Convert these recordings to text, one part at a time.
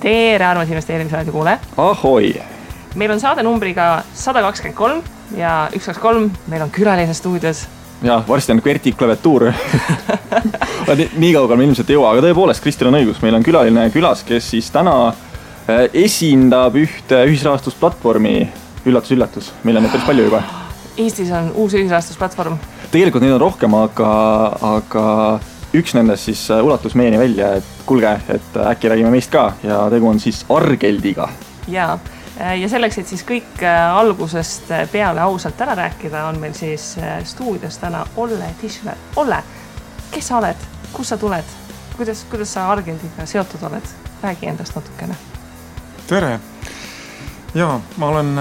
Tere, armas investeerimisraadio kuule. Ahoi! Meil on saade numbriga 123 ja 123, meil on külaline stuudios. Ja, varsti on Kverti klaviatuur. Nii kaugel me ilmselt ei jõua, aga tõepoolest, Kristel on õigus. Meil on külaline külas, kes siis täna esindab ühte ühisrahastusplatvormi. Üllatus. Meil on neid päris palju juba. Eestis on uus ühisrahastusplatvorm. Tegelikult neid on rohkem, aga üks nendest siis ulatus meieni välja, et kuulge, et äkki räägime meist ka ja tegu on siis Argeldiga. Ja selleks, et siis kõik algusest peale ausalt ära rääkida, on meil siis stuudios täna Olle Tischler. Olle, kes sa oled? Kus sa tuled? Kuidas sa Argeldiga seotud oled? Räägi endast natukene. Tere! Jaa, ma olen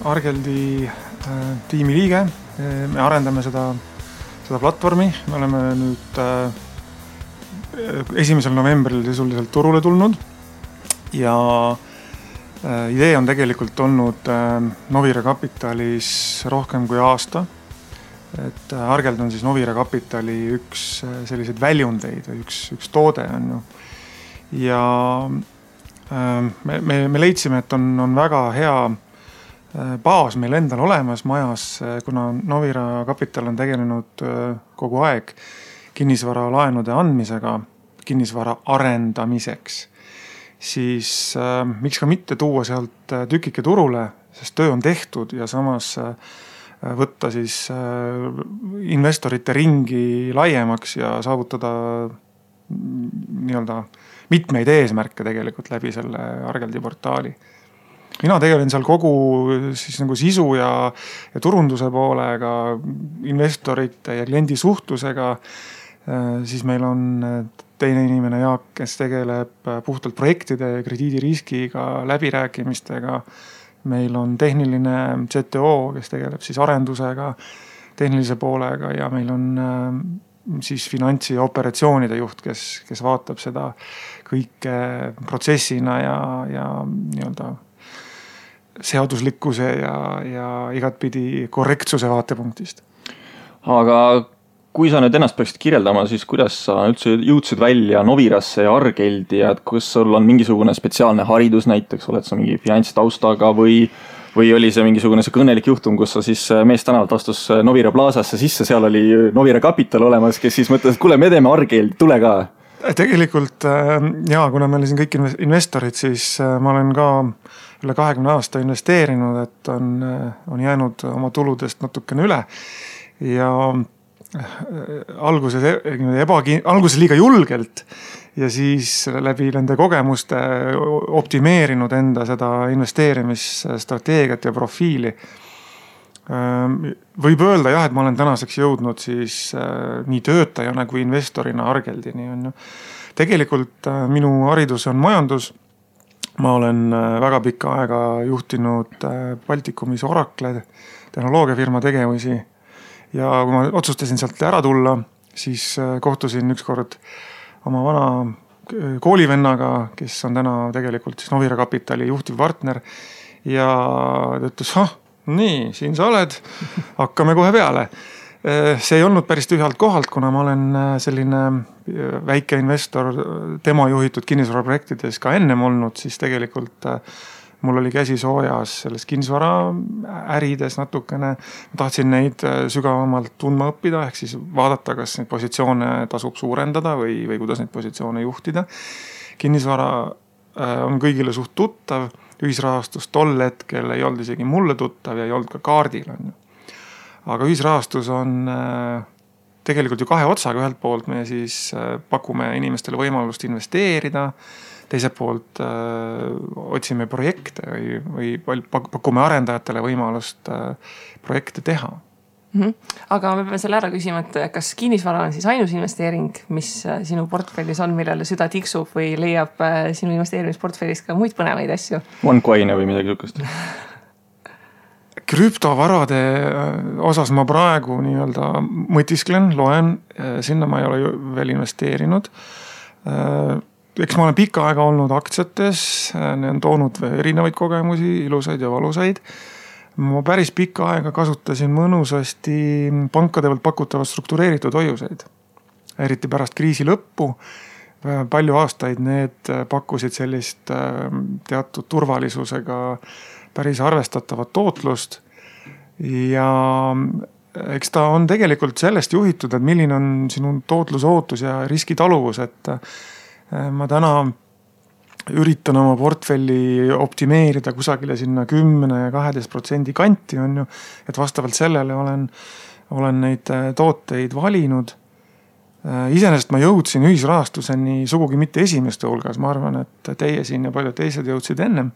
Argeldi tiimi liige. Me arendame seda platvormi. Me oleme nüüd 1. novembril sisuliselt turule tulnud ja idee on tegelikult olnud Novira Capitalis rohkem kui aasta. Et Argeld on siis Novira Capitali üks selliseid väljundeid või üks toode on ju. Ja me leidsime, et on väga hea baas meil endal olemas majas, kuna Novira Capital on tegelenud kogu aeg kinnisvara laenude andmisega, kinnisvara arendamiseks, siis miks ka mitte tuua sealt tükike turule, sest töö on tehtud ja samas võtta siis investorite ringi laiemaks ja saavutada nii-öelda mitmeid eesmärke tegelikult läbi selle Argeldi portaali. Mina tegelen seal kogu siis nagu sisu ja turunduse poolega, investorite ja kliendi suhtlusega. Siis meil on teine inimene Jaak, kes tegeleb puhtalt projektide ja krediidiriskiga, läbirääkimistega. Meil on tehniline CTO, kes tegeleb siis arendusega, tehnilise poolega ja meil on siis finantsi ja operatsioonide juht, kes vaatab seda kõike protsessina ja nii-öelda seaduslikkuse ja igatpidi korrektsuse vaatepunktist. Aga kui sa nüüd ennast peaksid kirjeldama, siis kuidas sa üldse jõudsid välja Novirasse ja Argeldi ja kas sul on mingisugune spetsiaalne haridus näiteks, oled sa mingi finantstaustaga või oli see mingisugune see kõnelik juhtum, kus sa siis meest tänavalt astus Novira Plaasasse sisse, seal oli Novira Capital olemas, kes siis mõtles, et kuule, me teeme Argeldi, tule ka. Tegelikult kuna meil siin kõik investorid, siis ma olen ka üle 20 aasta investeerinud, et on jäänud oma tuludest natukene üle ja alguses liiga julgelt ja siis läbi nende kogemuste optimeerinud enda seda investeerimisstrateegiat ja profiili. Võib öelda jah, et ma olen tänaseks jõudnud siis nii töötajana kui investorina Argeldini. Tegelikult minu haridus on majandus. Ma olen väga pikka aega juhtinud Baltikumis Oracle tehnoloogiafirma tegevusi. Ja kui ma otsustasin sealt ära tulla, siis kohtusin ükskord oma vana koolivennaga, kes on täna tegelikult siis Novira Capitali juhtiv partner ja ta ütles, nii, siin sa oled, hakkame kohe peale. See ei olnud päris tühjalt kohalt, kuna ma olen selline väike investor tema juhitud kinnisvaraprojektides ka ennem olnud, siis tegelikult mul oli käsi soojas selles kinnisvara ärides natukene. Ma tahtsin neid sügavamalt tundma õppida, ehk siis vaadata, kas neid positsioone tasub suurendada või kuidas neid positsioone juhtida. Kinnisvara on kõigile suht tuttav, ühisrahastus tol hetkel ei olnud isegi mulle tuttav ja ei olnud ka kaardil. Aga ühisrahastus on tegelikult ju kahe otsaga, ühelt poolt me siis pakume inimestele võimalust investeerida, teiselt poolt otsime projekte või pakume arendajatele võimalust projekte teha. Aga me peame selle ära küsima, et kas kinnisvara on siis ainus investeering, mis sinu portfellis on, millele süda tiksub või leiab sinu investeerimisportfellis ka muid põnevaid asju? OneCoin või midagi sukast? Krüptovarade osas ma praegu nii-öelda mõtisklen, loen, sinna ma ei ole veel investeerinud. Eks ma olen pikka aega olnud aktsiates, ne on toonud erinevaid kogemusi, ilusaid ja valusaid. Ma päris pikka aega kasutasin mõnusasti pankade pealt pakutavat struktureeritud hoiuseid. Eriti pärast kriisi lõppu palju aastaid need pakkusid sellist teatud turvalisusega päris arvestatavat tootlust ja eks ta on tegelikult sellest juhitud, et milline on sinu tootlusootus ja riskitaluvus, et ma täna üritan oma portfelli optimeerida kusagile sinna 10-12% kanti on ju, et vastavalt sellele olen neid tooteid valinud. Iseenesest ma jõudsin ühisrahastuseni sugugi mitte esimeste hulgas, ma arvan, et teie siin ja paljud teised jõudsid ennem.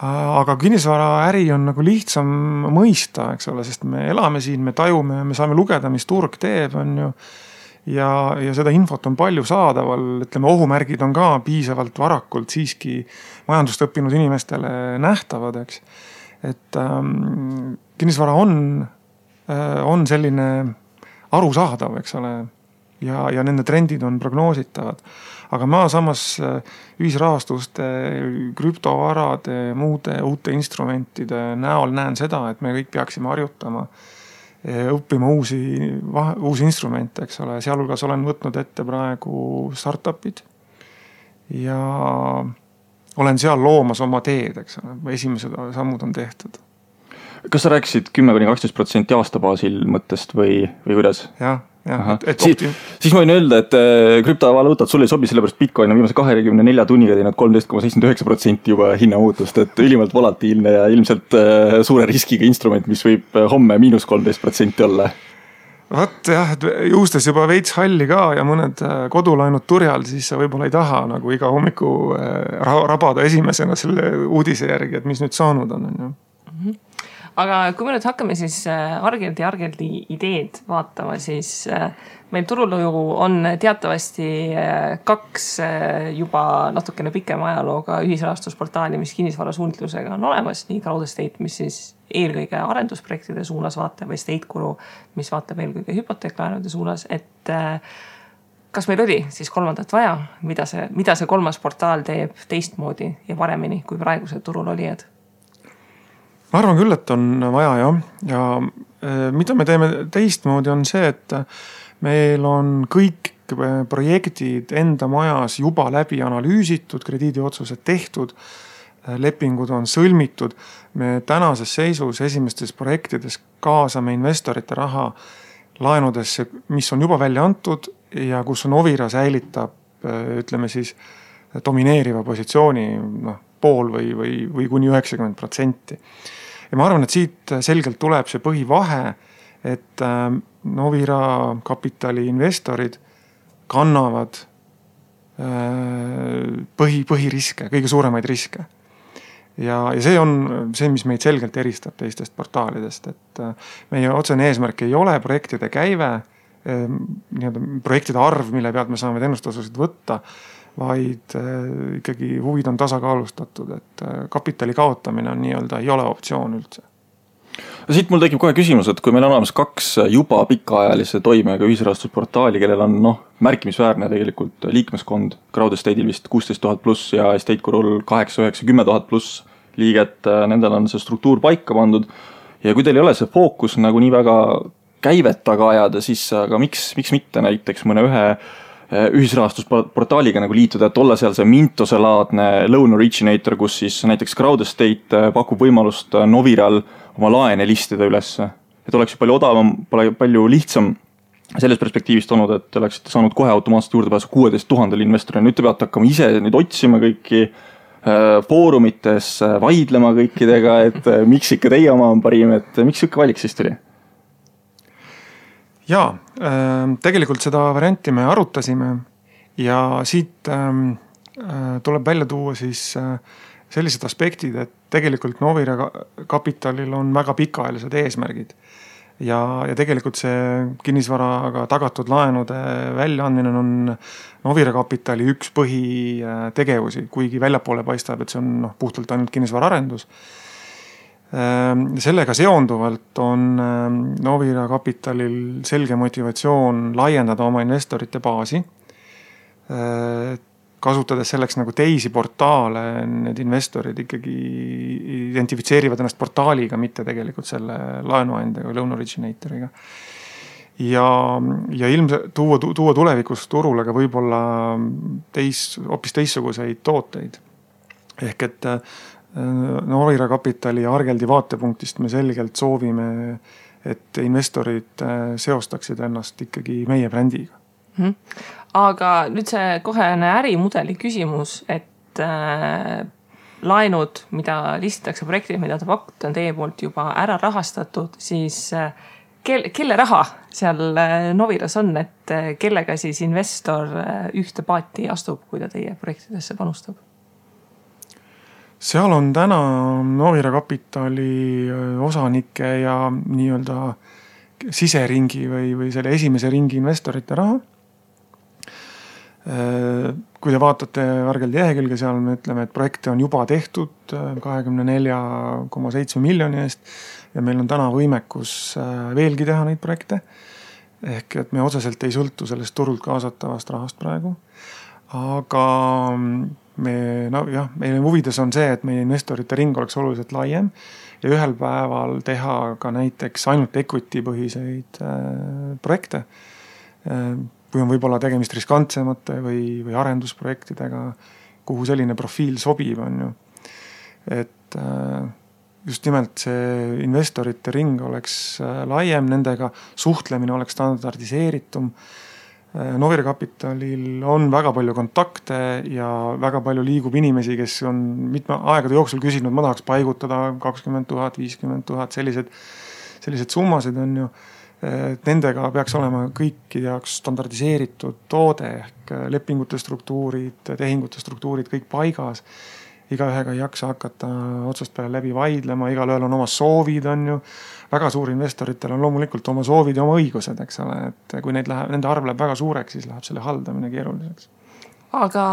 Aga kinnisvaraäri on nagu lihtsam mõista, eks ole, sest me elame siin, me tajume, me saame lugeda, mis turg teeb, on ju. Ja seda infot on palju saadaval, ütleme ohumärgid on ka piisavalt varakult siiski majandust õppinud inimestele nähtavad, eks. Et kinnisvara on selline arusaadav, eks ole, ja nende trendid on prognoositavad. Aga ma samas ühisrahastuste, krüptovarade, muude uute instrumentide näol näen seda, et me kõik peaksime harjutama õppima uusi instrumente, eks ole. Sealhulgas olen võtnud ette praegu startupid ja olen seal loomas oma teed, eks ole. Esimesed sammud on tehtud. Kas sa rääkisid 10-12% aastabaasil mõttest või kuidas? Jah. Siis ma võin öelda, et krüptovaluutad sulle ei sobi, sellepärast Bitcoin on viimase 24 tunniga teinud 13,79% juba hinnamuutust, et ülimalt volatiilne ja ilmselt suure riskiga instrument, mis võib homme -13% olla. Vaat jah, et juustes juba veits halli ka ja mõned kodulaenud turjal, siis sa võib-olla ei taha nagu iga hommiku rabada esimesena selle uudise järgi, et mis nüüd saanud on. Aga kui me nüüd hakkame siis Argeldi ideed vaatama, siis meil turul on teatavasti 2 juba natukene pikema ajalooga ühisrahastusportaali, mis kinnisvarasuundlusega on olemas, nii Crowdestate, mis siis eelkõige arendusprojektide suunas vaatab, või Estateguru, mis vaatab eelkõige hüpoteeklaenude suunas, et kas meil oli siis kolmandat vaja, mida see kolmas portaal teeb teistmoodi ja paremini kui praegused turul olijad? Ma arvan küll, et on vaja jah. Ja mida me teeme teistmoodi on see, et meil on kõik projektid enda majas juba läbi analüüsitud, krediidiotsused tehtud, lepingud on sõlmitud. Me tänases seisus esimestes projektides kaasame investorite raha laenudesse, mis on juba välja antud ja kus Novira säilitab, ütleme siis, domineeriva positsiooni pool või kuni 90%. Ja ma arvan, et siit selgelt tuleb see põhivahe, et Novira kapitali investorid kannavad põhiriske, kõige suuremaid riske. Ja see on see, mis meid selgelt eristab teistest portaalidest, et meie otsene eesmärk ei ole projektide käive, projektide arv, mille pealt me saame teenustasusid võtta, vaid ikkagi huvid on tasakaalustatud, et kapitali kaotamine on nii-öelda ei ole optsioon üldse. Siit mul tekib kohe küsimus, et kui meil on olemas 2 juba pikaajalise toimega ühisrahastusportaali, kellel on märkimisväärne tegelikult liikmeskond, Crowdestate'il vist 16 000 pluss ja Estategurul 8, 9, 10 000 pluss liiget, nendel on see struktuur paika pandud ja kui teil ei ole see fookus nagu nii väga käivet taga ajada, siis aga miks mitte näiteks mõne ühe ühisrahastusportaaliga nagu liituda, et olla seal see Mintose-laadne loan originator, kus siis näiteks Crowdestate pakub võimalust Noviral oma laene listida üles. Et oleks palju odavam, palju lihtsam selles perspektiivist olnud, et oleksite saanud kohe automaatselt juurdepääsu 16 000 investorina. Nüüd te peate hakkama ise nüüd otsima kõiki foorumites, vaidlema kõikidega, et miks ikka teie oma on parim, et miks ikka valik siis tuli? Jaa, tegelikult seda varianti me arutasime ja siit tuleb välja tuua siis sellised aspektid, et tegelikult Novira kapitalil on väga pikaajalised eesmärgid ja tegelikult see kinnisvaraga tagatud laenude väljaandmine on Novira kapitali üks põhitegevusi, kuigi väljapoole paistab, et see on puhtalt ainult kinnisvaraarendus. Sellega seonduvalt on Novira kapitalil selge motivatsioon laiendada oma investorite baasi, kasutades selleks nagu teisi portaale, need investorid ikkagi identifitseerivad ennast portaaliga, mitte tegelikult selle laenuandjaga või loan originatoriga. ja ilmselt tuua tulevikus turule ka võib-olla hoopis teistsuguseid tooteid. Ehk et Novira Kapitali ja Argeldi vaatepunktist me selgelt soovime, et investorid seostaksid ennast ikkagi meie brändiga. Aga nüüd see kohene ärimudeli küsimus, et laenud, mida listitakse projektid, mida te pakute, on teie poolt juba ära rahastatud, siis kelle raha seal Noviras on, et kellega siis investor ühte paati astub, kui ta teie projektidesse panustab? Seal on täna Novira Kapitali osanike ja nii-öelda siseringi või selle esimese ringi investorite raha. Kui te vaatate Argeldi lehekülge, seal me ütleme, et projekte on juba tehtud 24,7 miljoni eest ja meil on täna võimekus veelgi teha neid projekte. Ehk et me otseselt ei sõltu sellest turult kaasatavast rahast praegu. Aga meie huvides on see, et meie investorite ring oleks oluliselt laiem ja ühel päeval teha ka näiteks ainult equity põhiseid projekte, kui on võib-olla tegemist riskantsemate või arendusprojektidega, kuhu selline profiil sobib, on ju. Et just nimelt see investorite ring oleks laiem, nendega suhtlemine oleks standardiseeritum. Novira Kapitalil on väga palju kontakte ja väga palju liigub inimesi, kes on mitme aegade jooksul küsinud, ma tahaks paigutada 20 000, 50 000, sellised summasid on ju. Nendega peaks olema kõikide jaoks standardiseeritud toode ehk lepingute struktuurid, tehingute struktuurid kõik paigas. Igaühega ei jaksa hakata otsast peale läbi vaidlema, igalühel on oma soovid, on ju. Väga suur investoritel on loomulikult oma soovid ja oma õigused, eks ole. Et kui nende arv läheb väga suureks, siis läheb selle haldamine keeruliseks. Aga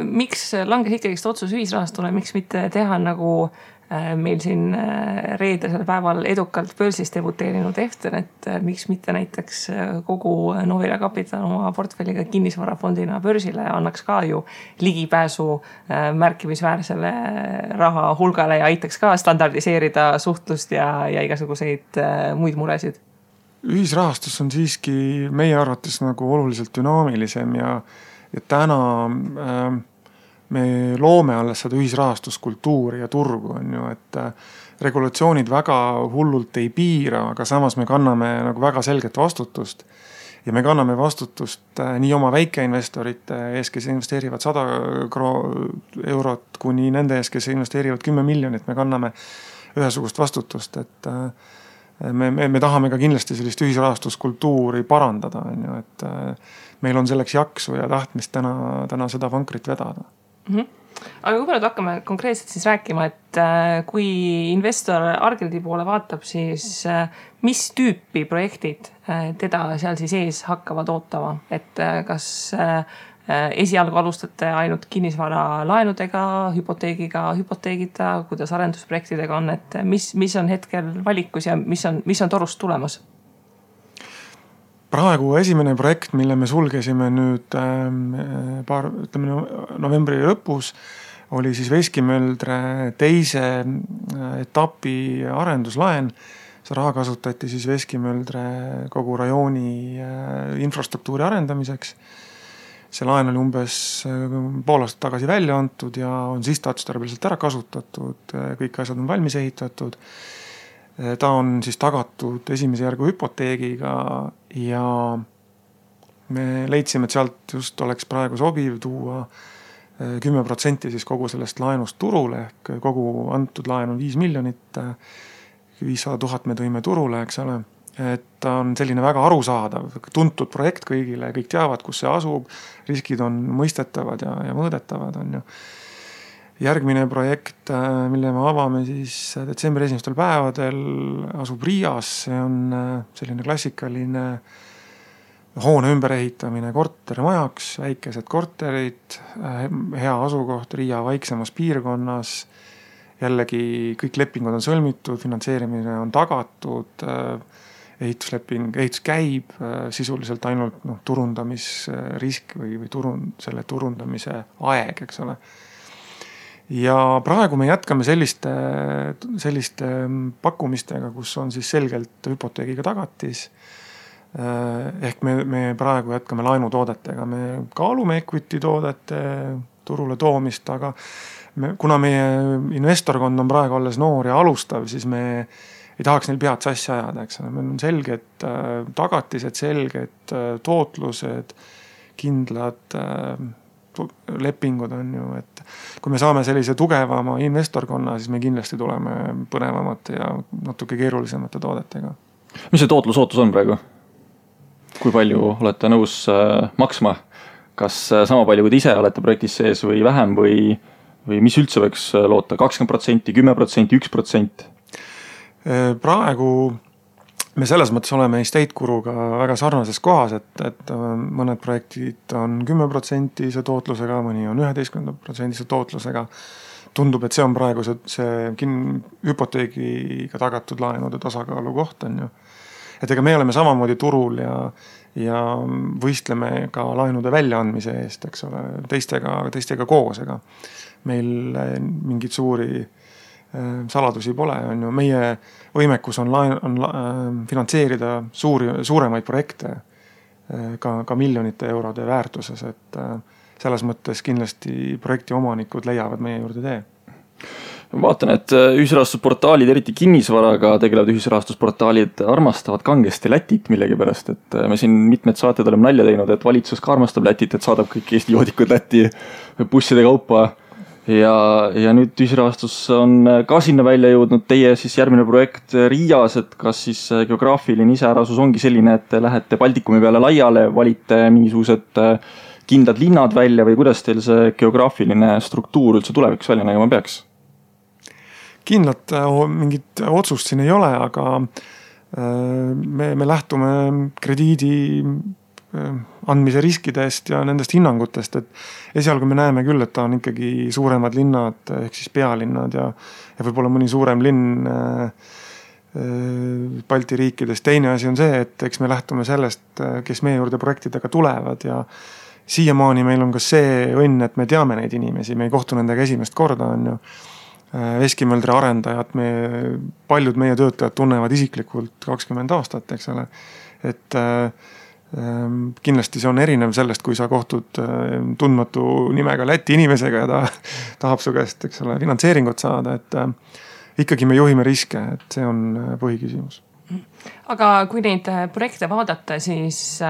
miks langes ikkagi otsus ühisrahastule, miks mitte teha nagu meil siin reedesel päeval edukalt börsis debuteerinud Eften, et miks mitte näiteks kogu Novira Kapital oma portfelliga kinnisvarafondina börsile annaks ka ju ligipääsu märkimisväärsele raha hulgale ja aitaks ka standardiseerida suhtlust ja igasuguseid muid muresid. Ühisrahastus on siiski meie arvates nagu oluliselt dünaamilisem ja täna me loome alles seda ühisrahastuskultuuri ja turgu, on ju, et regulatsioonid väga hullult ei piira, aga samas me kanname nagu väga selget vastutust. Ja me kanname vastutust nii oma väikeinvestorite ees, kes investeerivad 100 eurot, kuni nende ees, kes investeerivad 10 miljonit, me kanname ühesugust vastutust, et me tahame ka kindlasti sellist ühisrahastuskultuuri parandada, on ju, et meil on selleks jaksu ja tahtmist täna seda vankrit vedada. Aga kui nüüd hakkame konkreetselt siis rääkima, et kui investor Argeldi poole vaatab, siis mis tüüpi projektid teda seal siis ees hakkavad ootama, et kas esialgu alustate ainult kinnisvara laenudega, hüpoteegita, kuidas arendusprojektidega on, et mis on hetkel valikus ja mis on torust tulemas? Praegu esimene projekt, mille me sulgesime nüüd novembri lõpus, oli siis Veskimöldre teise etapi arenduslaen. See raha kasutati siis Veskimöldre kogu rajooni infrastruktuuri arendamiseks. See laen oli umbes pool aastat tagasi välja antud ja on sihtotstarbeliselt ära kasutatud, kõik asjad on valmis ehitatud. Ta on siis tagatud esimese järgu hüpoteegiga ja me leidsime, et sealt just oleks praegu sobiv tuua 10% siis kogu sellest laenust turule, ehk kogu antud laen on 5 miljonit, 500 000 me tõime turule, eks ole. Et ta on selline väga arusaadav, tuntud projekt kõigile, kõik teavad, kus see asub, riskid on mõistetavad ja mõõdetavad, on ju. Järgmine projekt, mille me avame siis detsembri esimestel päevadel, asub Riias. See on selline klassikaline hoone ümberehitamine kortermajaks, väikesed korterid, hea asukoht Riia vaiksemas piirkonnas. Jällegi kõik lepingud on sõlmitud, finantseerimine on tagatud, ehitus käib, sisuliselt ainult turundamisrisk või selle turundamise aeg, eks ole. Ja praegu me jätkame selliste pakkumistega, kus on siis selgelt hüpoteegiga tagatis. Ehk me praegu jätkame laenutoodetega, me kaalume equity toodete turule toomist, aga kuna meie investorkond on praegu alles noor ja alustav, siis me ei tahaks neil pead sassi ajada, eks ole. Meil on selged tagatised, selged tootlused, kindlad lepingud on ju, et kui me saame sellise tugevama investorkonna, siis me kindlasti tuleme põnevamate ja natuke keerulisemate toodetega. Mis see tootlusootus on praegu? Kui palju olete nõus maksma? Kas sama palju, kui te ise olete projektis sees või vähem või mis üldse võiks loota? 20%, 10%, 1%? Praegu me selles mõttes oleme Estate Guruga väga sarnases kohas, et mõned projektid on 10% tootlusega, mõni on 11% tootlusega. Tundub, et see on praegu see hüpoteegiga tagatud laenude tasakaalu koht on ju. Et ega me oleme samamoodi turul ja võistleme ka laenude väljaandmise eest, eks ole, teistega koos, ega meil mingid suuri saladusi pole, on ju. Meie võimekus on finantseerida suuremaid projekte ka miljonite eurode väärtuses, et selles mõttes kindlasti projekti omanikud leiavad meie juurde tee. Vaatan, et ühisrahastusportaalid, eriti kinnisvaraga tegelevad ühisrahastusportaalid armastavad kangesti Lätit millegi pärast, et me siin mitmed saated oleme nalja teinud, et valitsus ka armastab Lätit, et saadab kõik Eesti joodikud Lätti busside kaupa ja nüüd ühisrahastus on ka sinna välja jõudnud. Teie siis järgmine projekt Riias, et kas siis geograafiline iseärasus ongi selline, et te lähete Baltikumi peale laiale, valite mingisugused kindlad linnad välja või kuidas teil see geograafiline struktuur üldse tulevikus välja nägema peaks? Kindlat mingit otsust siin ei ole, aga me lähtume krediidi andmise riskidest ja nendest hinnangutest, et esialgu me näeme küll, et ta on ikkagi suuremad linnad ehk siis pealinnad ja võib-olla mõni suurem linn Balti riikides. Teine asi on see, et eks me lähtume sellest, kes meie juurde projektidega tulevad ja siiamaani meil on ka see õnn, et me teame neid inimesi, me ei kohtu nendega esimest korda on ju. Veskimöldri arendajad, paljud meie töötajad tunnevad isiklikult 20 aastat, eks ole. Et kindlasti see on erinev sellest, kui sa kohtud tundmatu nimega Läti inimesega ja ta tahab su käest, eks ole, finantseeringut saada, et ikkagi me juhime riske, et see on põhiküsimus. Aga kui neid projekte vaadata, siis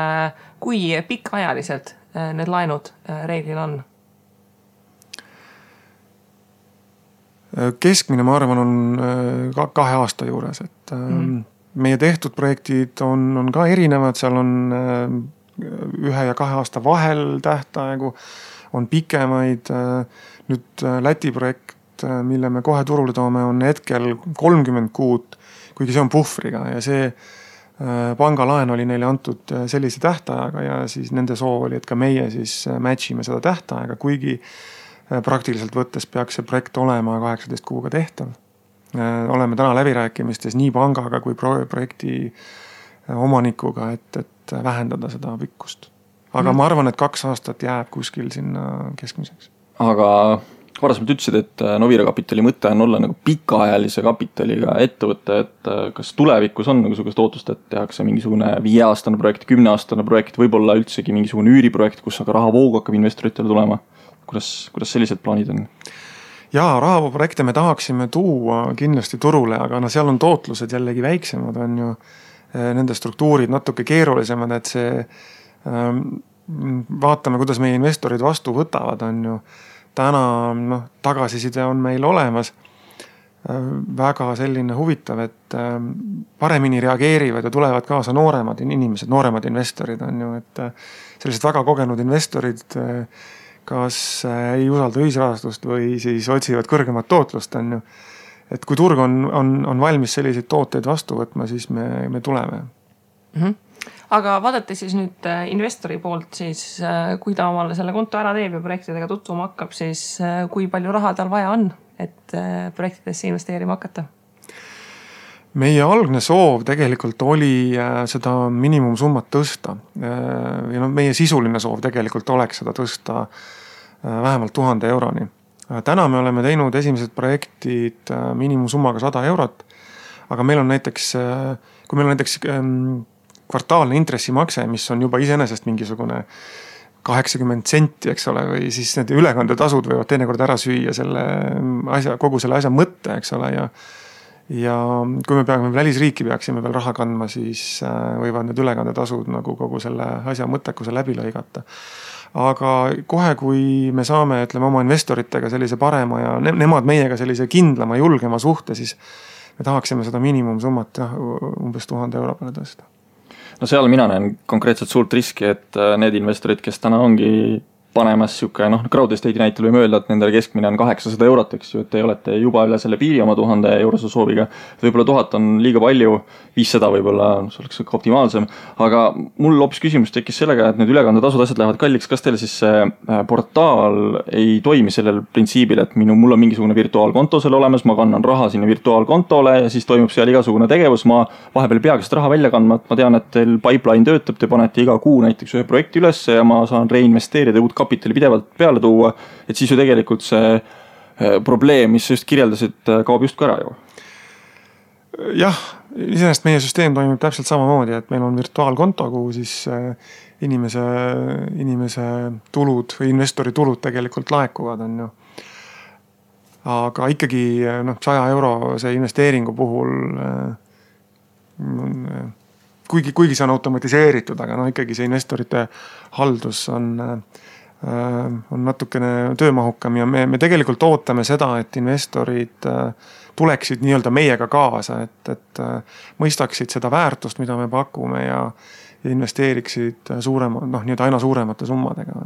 kui pikaajaliselt need laenud reeglil on? Keskmine, ma arvan, on 2 aasta juures, et meie tehtud projektid on ka erinevad, seal on 1 ja 2 aasta vahel tähtaegu, on pikemaid. Nüüd Läti projekt, mille me kohe turule toome, on hetkel 30 kuud, kuigi see on puhvriga ja see pangalaen oli neile antud sellise tähtajaga ja siis nende soov oli, et ka meie siis matchime seda tähtajaga, kuigi praktiliselt võttes peaks see projekt olema 18 kuuga tehtav. Oleme täna läbirääkimistes nii pangaga kui projekti omanikuga, et vähendada seda pikkust. Aga ma arvan, et 2 aastat jääb kuskil sinna keskmiseks. Aga varasemalt ütlesid, et Novira kapitali mõte on olla nagu pikaajalise kapitaliga ettevõte, et kas tulevikus on nagu sugust ootust, et tehakse mingisugune 5-aastane projekt, 10-aastane projekt, võib-olla üldsegi mingisugune üüriprojekt, kus aga rahavoogu hakkab investoritele tulema? Kuidas sellised plaanid on? Jaa, rahavooprojekte me tahaksime tuua kindlasti turule, aga seal on tootlused jällegi väiksemad, on ju nende struktuurid natuke keerulisemad, et see vaatame, kuidas meie investorid vastu võtavad, on ju. Täna tagasiside on meil olemas väga selline huvitav, et paremini reageerivad ja tulevad kaasa nooremad inimesed, nooremad investorid on ju, et sellised väga kogenud investorid kas ei usalda ühisrahastust või siis otsivad kõrgemat tootlust on ju. Et kui turg on valmis selliseid tooteid vastu võtma, siis me tuleme. Aga vaadate siis nüüd investori poolt, siis kui ta omale selle konto ära teeb ja projektidega tutvuma hakkab, siis kui palju raha tal vaja on, et projektidesse investeerima hakata? Meie algne soov tegelikult oli seda miinimumsummat tõsta. Ja meie sisuline soov tegelikult oleks seda tõsta vähemalt 1000 euroni. Täna me oleme teinud esimesed projektid miinimumsummaga 100 eurot, aga meil on näiteks, kui meil on näiteks kvartaalne intressimakse, mis on juba iseenesest mingisugune 80 senti, eks ole, või siis need ülekandetasud võivad teinekord ära süüa selle asja, kogu selle asja mõtte, eks ole, ja kui me peame välisriiki peaksime veel raha kandma, siis võivad need ülekandetasud nagu kogu selle asja mõttekuse läbi lõigata. Aga kohe, kui me saame, ütleme, oma investoritega sellise parema ja nemad meiega sellise kindlama, julgema suhte, siis me tahaksime seda miinimumsummat umbes 1000 euro peale tõsta. No seal mina näen konkreetselt suurt riski, et need investorid, kes täna ongi panemas siuke, crowd estate'i näitel võime öelda, et nendele keskmine on 800 eurot, eks ju, et te olete juba üle selle piiri oma 1000 eurose sooviga. Võib-olla 1000 on liiga palju, 500 võib-olla see oleks optimaalsem, aga mul hoopis küsimus tekkis sellega, et need ülekandetasud asjad lähevad kalliks. Kas teil siis see portaal ei toimi sellel printsiibil, et mul on mingisugune virtuaalkonto seal olemas, ma kannan raha sinna virtuaalkontole ja siis toimub seal igasugune tegevus, ma vahepeal peagi seda raha välja kandma, et ma tean, et teil pipeline töötab, te panete iga kuu näiteks ühe projekti üles ja ma saan reinvesteerida uut kapitali pidevalt peale tuua, et siis ju tegelikult see probleem, mis sa just kirjeldasid, kaob just ära ju. Jah, iseenesest meie süsteem toimib täpselt samamoodi, et meil on virtuaalkonto, kuhu siis inimese tulud või investori tulud tegelikult laekuvad, on ju. Aga ikkagi 100 euro see investeeringu puhul kuigi see on automatiseeritud, aga ikkagi see investorite haldus on natukene töömahukam ja me tegelikult ootame seda, et investorid tuleksid nii-öelda meiega kaasa, et mõistaksid seda väärtust, mida me pakume ja investeeriksid nii-öelda aina suuremate summadega.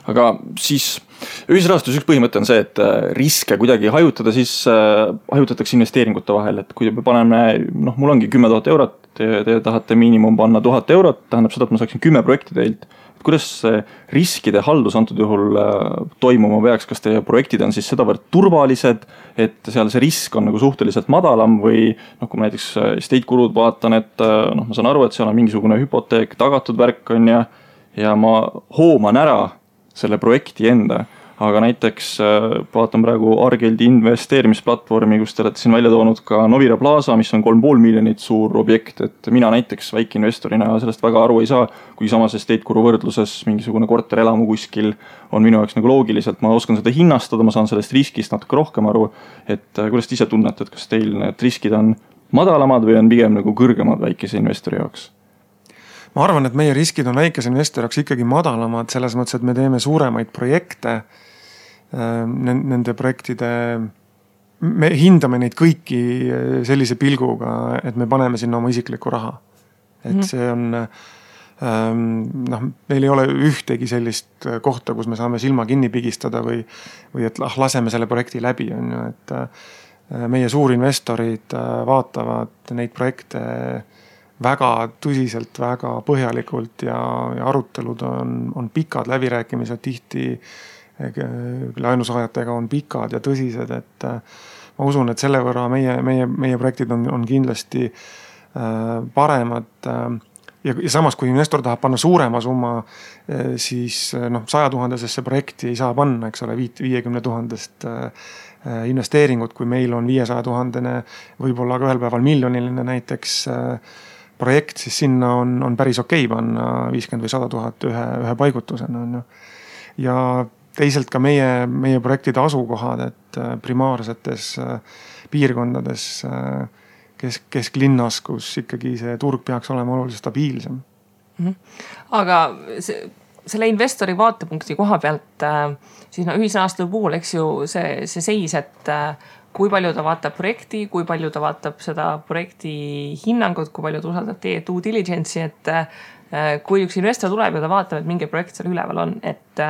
Aga siis ühisrahastus üks põhimõte on see, et riske kuidagi hajutada, siis hajutatakse investeeringute vahel, et kui me paneme, mul ongi 10 000 eurot, te tahate miinimum panna 1000 eurot, tähendab seda, et ma saaksin 10 projekti teilt. Kuidas see riskide haldus antud juhul toimuma peaks, kas teie projektid on siis sedavõrd turvalised, et seal see risk on nagu suhteliselt madalam või kui ma näiteks estate kulud vaatan, et ma saan aru, et seal on mingisugune hüpoteek, tagatud värk on ja ma hooman ära selle projekti enda. Aga näiteks vaatan praegu Argeldi investeerimisplatvormi, kus te olete siin välja toonud ka Novira Plaza, mis on 3,5 miljonit suur objekt, et mina näiteks väikeinvestorina sellest väga aru ei saa, kui samas estate kuru võrdluses mingisugune korterelamu kuskil on minu jaoks nagu loogiliselt, ma oskan seda hinnastada, ma saan sellest riskist natuke rohkem aru, et kuidas te ise tunnete, et kas teil need riskid on madalamad või on pigem nagu kõrgemad väikese investori jaoks? Ma arvan, et meie riskid on väikese investori jaoks ikkagi madalamad, selles mõttes, et me teeme suuremaid projekte, nende projektide, me hindame neid kõiki sellise pilguga, et me paneme sinna oma isiklikku raha. Et see on, meil ei ole ühtegi sellist kohta, kus me saame silma kinni pigistada või et laseme selle projekti läbi. On ju, et meie suurinvestorid vaatavad neid projekte väga tõsiselt, väga põhjalikult ja arutelud on pikad, läbirääkimised tihti laenusaajatega on pikad ja tõsised, et ma usun, et selle võrra meie projektid on kindlasti paremad ja samas, kui investor tahab panna suurema summa, siis 100 000-sesse projekti ei saa panna, eks ole, 50 000 investeeringut, kui meil on 500 000, võib-olla ka ühel päeval miljoniline näiteks projekt, siis sinna on päris okei panna 50 või 100 000 ühe paigutusena. Ja teisalt ka meie projektide asukohad, et primaarsetes piirkondades kesklinnas, kus ikkagi see turg peaks olema oluliselt stabiilsem. Aga selle investori vaatepunkti koha pealt siis ühisrahastuse puhul, eks ju, see seis, et kui palju ta vaatab projekti, kui palju ta vaatab seda projekti hinnangut, kui palju ta usaldab teie due diligence'i, et kui üks investor tuleb ja ta vaatab, et mingi projekt seal üleval on, et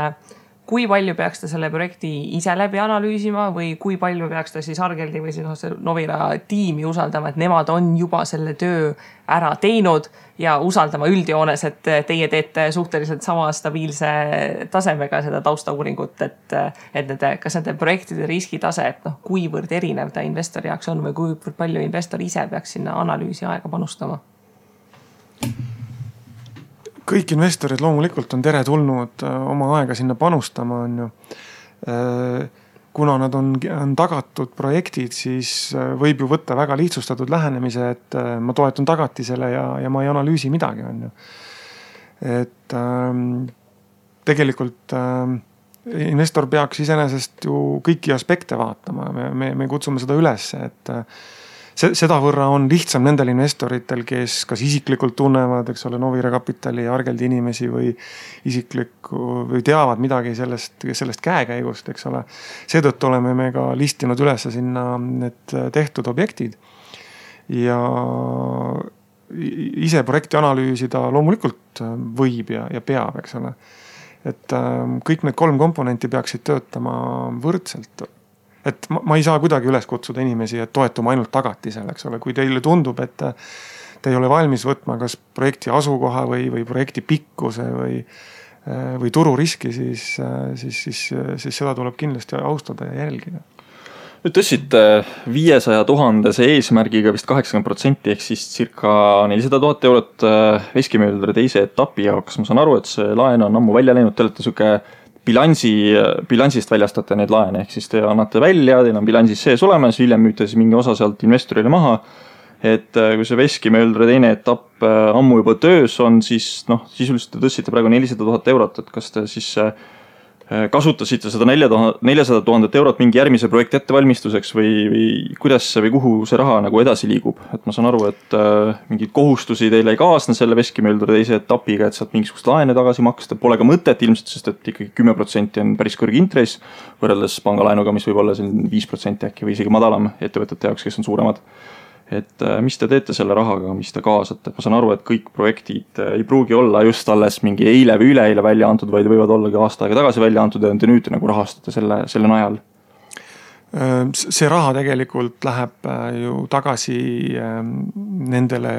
kui palju peaks ta selle projekti ise läbi analüüsima või kui palju peaks ta siis Argeldi või siis Novira tiimi usaldama, et nemad on juba selle töö ära teinud ja usaldama üldjoones, et teie teete suhteliselt sama stabiilse tasemega seda taustauuringut, et kas nende projektide riskitase, et kuivõrd erinev ta investori jaoks on või kuivõrd palju investor ise peaks sinna analüüsi aega panustama? Kõik investorid loomulikult on tere tulnud oma aega sinna panustama, on ju. kuna nad on tagatud projektid, siis võib ju võtta väga lihtsustatud lähenemise, et ma toetun tagatisele ja ma ei analüüsi midagi, on ju. Et tegelikult investor peaks iseenesest ju kõiki aspekte vaatama. Me kutsume seda üles, et seda võrra on lihtsam nendel investoritel, kes kas isiklikult tunnevad, eks ole, Novira Kapitali ja Argeldi inimesi või või teavad midagi sellest käekäigust, eks ole. Seetõttu oleme me ka listinud üles sinna need tehtud objektid ja ise projekti analüüsida loomulikult võib ja peab, eks ole. Et kõik need 3 komponenti peaksid töötama võrdselt. Et ma ei saa kuidagi üles kutsuda inimesi, et toetuma ainult tagatisele, eks ole. Kui teile tundub, et te ei ole valmis võtma kas projekti asukoha või projekti pikkuse või tururiski, siis seda tuleb kindlasti austada ja jälgida. Nüüd tõstsite 500 000 eesmärgiga vist 80% ehk siis circa 400 000 eurot veskimööldre teise etapi jaoks. Ma saan aru, et see laen on ammu välja läinud, te olete suke bilansist väljastate need laene, ehk siis te annate välja, teil on bilansis sees olemas, hiljem müüte siis mingi osa sealt investorile maha. Et kui see veskimööldre teine etapp ammu juba töös on, siis sisuliselt te tõstsite praegu 400 000 eurot, et kas te siis kasutasite seda 400 000 eurot mingi järgmise projekti ettevalmistuseks või kuidas või kuhu see raha nagu edasi liigub? Et ma saan aru, et mingid kohustusi teile ei kaasne selle veskimööldre teise etapiga, et saad mingisugust laene tagasi maksta. Pole ka mõtet ilmselt, sest et ikkagi 10% on päris kõrge intress võrreldes pangalaenuga, mis võib olla 5% äkki või isegi madalam ettevõtete jaoks, kes on suuremad. Et mis te teete selle rahaga, mis te kaasate? Ma saan aru, et kõik projektid ei pruugi olla just alles mingi eile või üleeile välja antud, vaid võivad olla ka aasta aega tagasi välja antud ja te nüüd nagu rahastate selle najal. See raha tegelikult läheb ju tagasi nendele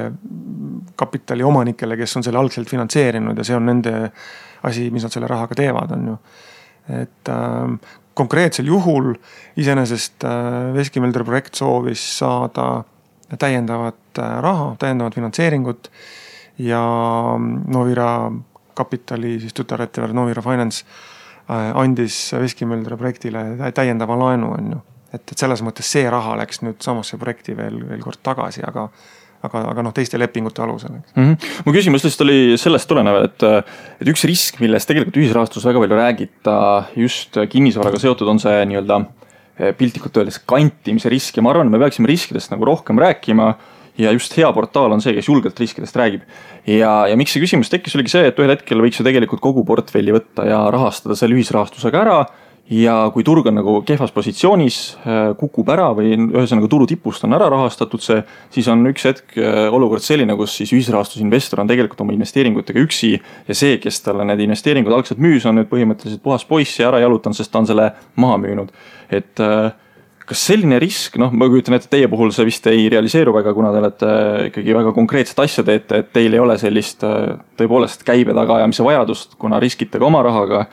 kapitali omanikele, kes on selle algselt finantseerinud ja see on nende asi, mis nad selle rahaga teevad, on ju. Et konkreetsel juhul iseenesest veskimööldre projekt soovis saada täiendavat raha, täiendavat finantseeringut ja Novira Kapitali, siis tütarettevõte Novira Finance andis veskimööldre projektile täiendava laenu, on ju. Et selles mõttes see raha läks nüüd samasse projekti veel kord tagasi, aga teiste lepingute alusel. Mu küsimus lihtsalt oli sellest tulenev, et üks risk, millest tegelikult ühisrahastus väga palju räägita just kinnisvaraga seotud, on see nii-öelda piltlikult öeldes kantimise risk ja ma arvan, et me peaksime riskidest nagu rohkem rääkima ja just hea portaal on see, kes julgelt riskidest räägib. Ja miks see küsimus tekkis oligi see, et ühel hetkel võiks ju tegelikult kogu portfelli võtta ja rahastada selle ühisrahastusega ära ja kui turg on nagu kehvas positsioonis, kukub ära või ühesõnaga turu tipust on ära rahastatud see, siis on üks hetk olukord selline, kus siis ühisrahastusinvestor on tegelikult oma investeeringutega üksi ja see, kes talle need investeeringud algselt müüs, on nüüd põhimõtteliselt puhas poiss ja ära jalutanud, sest ta on selle maha müünud. Et kas selline risk, ma kujutan, et teie puhul see vist ei realiseeru väga, kuna te olete ikkagi väga konkreetset asja teete, et teil ei ole sellist tõepoolest käibe tagaajamise vajadust, kuna riskite ka oma rahaga,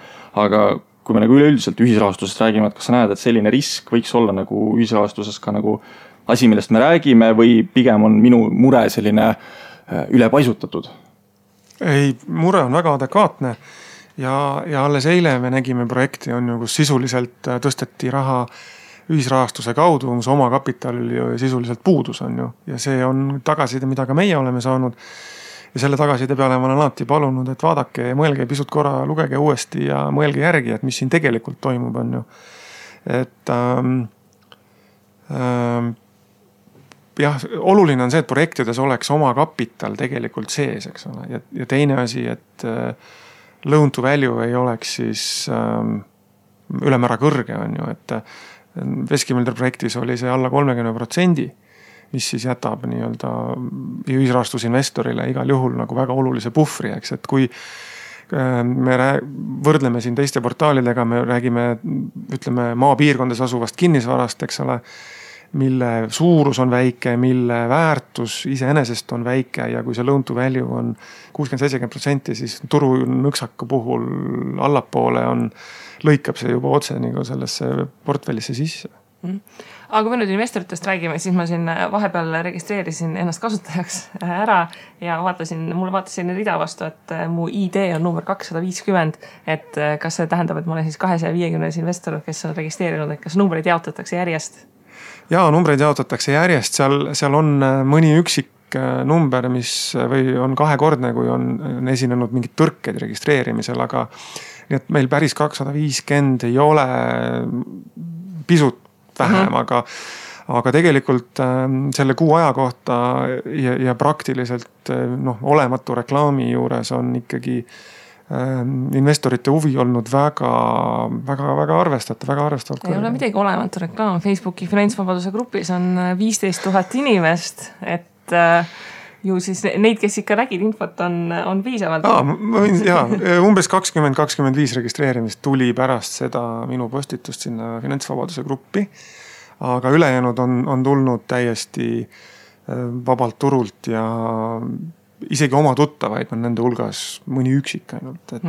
aga kui me nagu üleüldiselt ühisrahastusest räägime, et kas sa näed, et selline risk võiks olla nagu ühisrahastuses ka nagu asi, millest me räägime või pigem on minu mure selline ülepaisutatud? Ei, mure on väga adekvaatne ja alles eile me nägime projekti, on ju, kus sisuliselt tõsteti raha ühisrahastuse kaudu, mis oma kapitalil sisuliselt puudus, on ju. Ja see on tagaside, mida ka meie oleme saanud. Ja selle tagaside peale ma olen alati palunud, et vaadake ja mõelge pisut korra, lugege uuesti ja mõelge järgi, et mis siin tegelikult toimub, on ju. Et jah, oluline on see, et projektides oleks oma kapital tegelikult sees, eks ole. Ja teine asi, et loan to value ei oleks siis ülemäära kõrge, on ju, et veskimööldre projektis oli see alla 30%, mis siis jätab nii-öelda ühisrahastusinvestorile igal juhul nagu väga olulise puhvri, eks, et kui me võrdleme siin teiste portaalidega, me räägime, ütleme, maapiirkondades asuvast kinnisvarast, eks ole, mille suurus on väike, mille väärtus iseenesest on väike ja kui see loan to value on 60-70%, siis turu nõksaka puhul allapoole lõikab see juba otse nagu sellesse portfellisse sisse. Aga kui nüüd investoritest räägime, siis ma siin vahepeal registreerisin ennast kasutajaks ära ja mulle vaatasin rida vastu, et mu ID on number 250, et kas see tähendab, et ma olen siis 250 investor, kes on registreerinud, et kas numbreid jaotatakse järjest? Jaa, numbreid jaotatakse järjest, seal on mõni üksik number, mis või on kahekordne, kui on esinenud mingid tõrked registreerimisel, aga nii et meil päris 250 ei ole pisut vähem, aga tegelikult selle kuu aja kohta ja praktiliselt olematu reklaami juures on ikkagi investorite huvi olnud väga arvestatavalt. Ei ole midagi olematu reklaam. Facebooki finantsvabaduse grupis on 15 000 inimest, et ju siis neid, kes ikka nägid infot, on piisavalt. Umbes 20-25 registreerimist tuli pärast seda minu postitust sinna finantsvabaduse gruppi, aga ülejäänud on tulnud täiesti vabalt turult ja isegi oma tuttavaid on nende hulgas mõni üksik ainult, et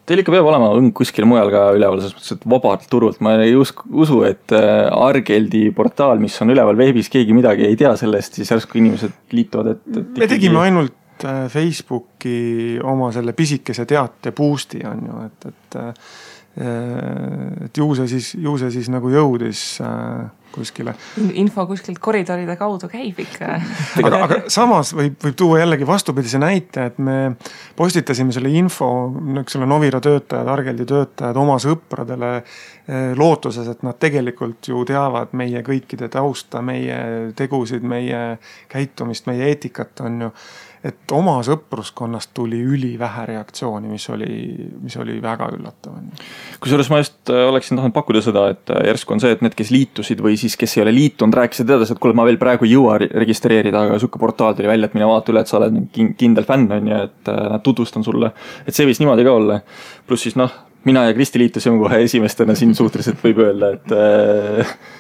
Teil ikka peab olema õng kuskil mujal ka üleval, selles mõttes, et vabalt turult. Ma ei usu, et Argeldi portaal, mis on üleval veebis, keegi midagi ei tea sellest, siis järsku inimesed liituvad. Me tegime ainult Facebooki oma selle pisikese teate boosti on ju, et ju see siis nagu jõudis kuskile. Info kuskilt koridoride kaudu käib ikka. Aga samas võib tuua jällegi vastupidise näite, et me postitasime selle info, selle Novira töötajad, Argeldi töötajad oma sõpradele lootuses, et nad tegelikult ju teavad meie kõikide tausta, meie tegusid, meie käitumist, meie eetikat on ju. Et oma sõpruskonnast tuli ülivähe reaktsiooni, mis oli väga üllatav. Kusjuures ma just oleksin tahtnud pakkuda seda, et järsku on see, et need, kes liitusid või siis kes ei ole liitunud, rääkisid teades, et kuule, ma veel praegu ei jõua registreerida, aga sukke portaal tuli välja, et mine vaata üle, et sa oled kindel fänn on ja et nad tutvustan sulle. Et see võis niimoodi ka olla. Plus siis mina ja Kristi liitusime kohe esimestena siin suhteliselt võib öelda, et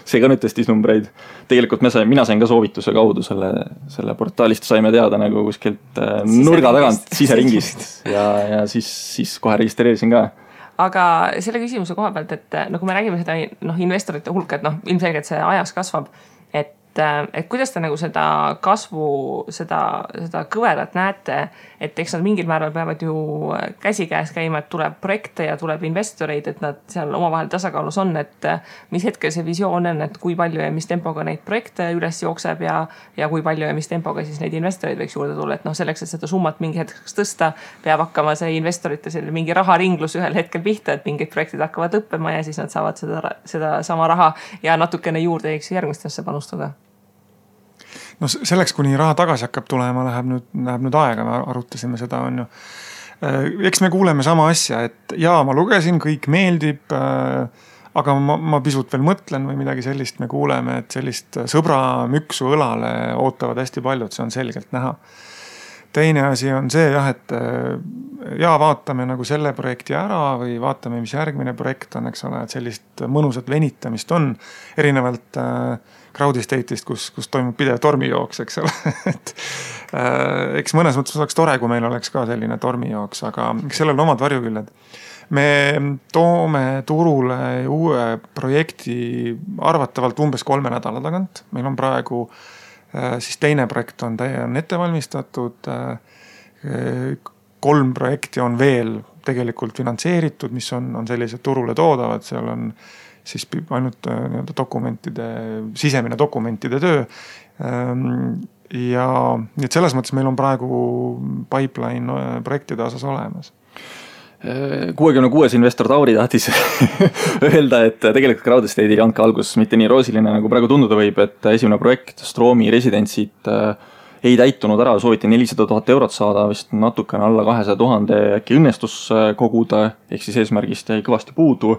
see ka nüüd testis numbreid. Tegelikult mina sain ka soovituse kaudu selle portaalist saime teada nagu kuskilt nurga tagant siseringist ja siis kohe registreerisin ka. Aga selle küsimuse koha pealt, et kui me räägime seda investorite hulka, et ilmselgelt see ajas kasvab, et kuidas te nagu seda kasvu, seda kõverat näete, et eks nad mingil määral peavad ju käsikäes käima, et tuleb projekte ja tuleb investoreid, et nad seal omavahel tasakaalus on, et mis hetkel see visioon on, et kui palju ja mis tempoga neid projekte üles jookseb ja kui palju ja mis tempoga siis neid investoreid võiks juurde tulla, et selleks, et seda summat mingi hetkeks tõsta, peab hakkama see investorite mingi raharinglus ühel hetkel pihta, et mingid projektid hakkavad lõppema ja siis nad saavad seda sama raha ja natukene juurde järgmistesse panustada. Selleks, kuni raha tagasi hakkab tulema, läheb nüüd aega, me arutasime seda on ju. Eks me kuuleme sama asja, et ma lugesin, kõik meeldib, aga ma pisut veel mõtlen või midagi sellist me kuuleme, et sellist sõbra müksu õlale ootavad hästi paljud, see on selgelt näha. Teine asi on see, et vaatame nagu selle projekti ära või vaatame, mis järgmine projekt on, eks ole, et sellist mõnusat venitamist on erinevalt crowd estate'ist, kus toimub pidev tormijooks, eks ole. Eks mõnes mõttes oleks tore, kui meil oleks ka selline tormijooks, aga sellel omad varjuküljed. Me toome turule uue projekti arvatavalt umbes 3 nädala tagant. Meil on praegu siis teine projekt on ette valmistatud. 3 projekti on veel tegelikult finantseeritud, mis on sellised turule toodavad, seal on siis ainult sisemine dokumentide töö. Ja nii et selles mõttes meil on praegu pipeline projektide osas olemas. 66 investor Tauri tahtis öelda, et tegelikult crowd estate'i andke algus mitte nii roosiline, nagu praegu tunduda võib, et esimene projekt Stroomi residentsid ei täitunud ära, sooviti 400 000 eurot saada, vist natukene alla 200 000 äkki õnnestus koguda, ehk siis eesmärgist jäi kõvasti puudu.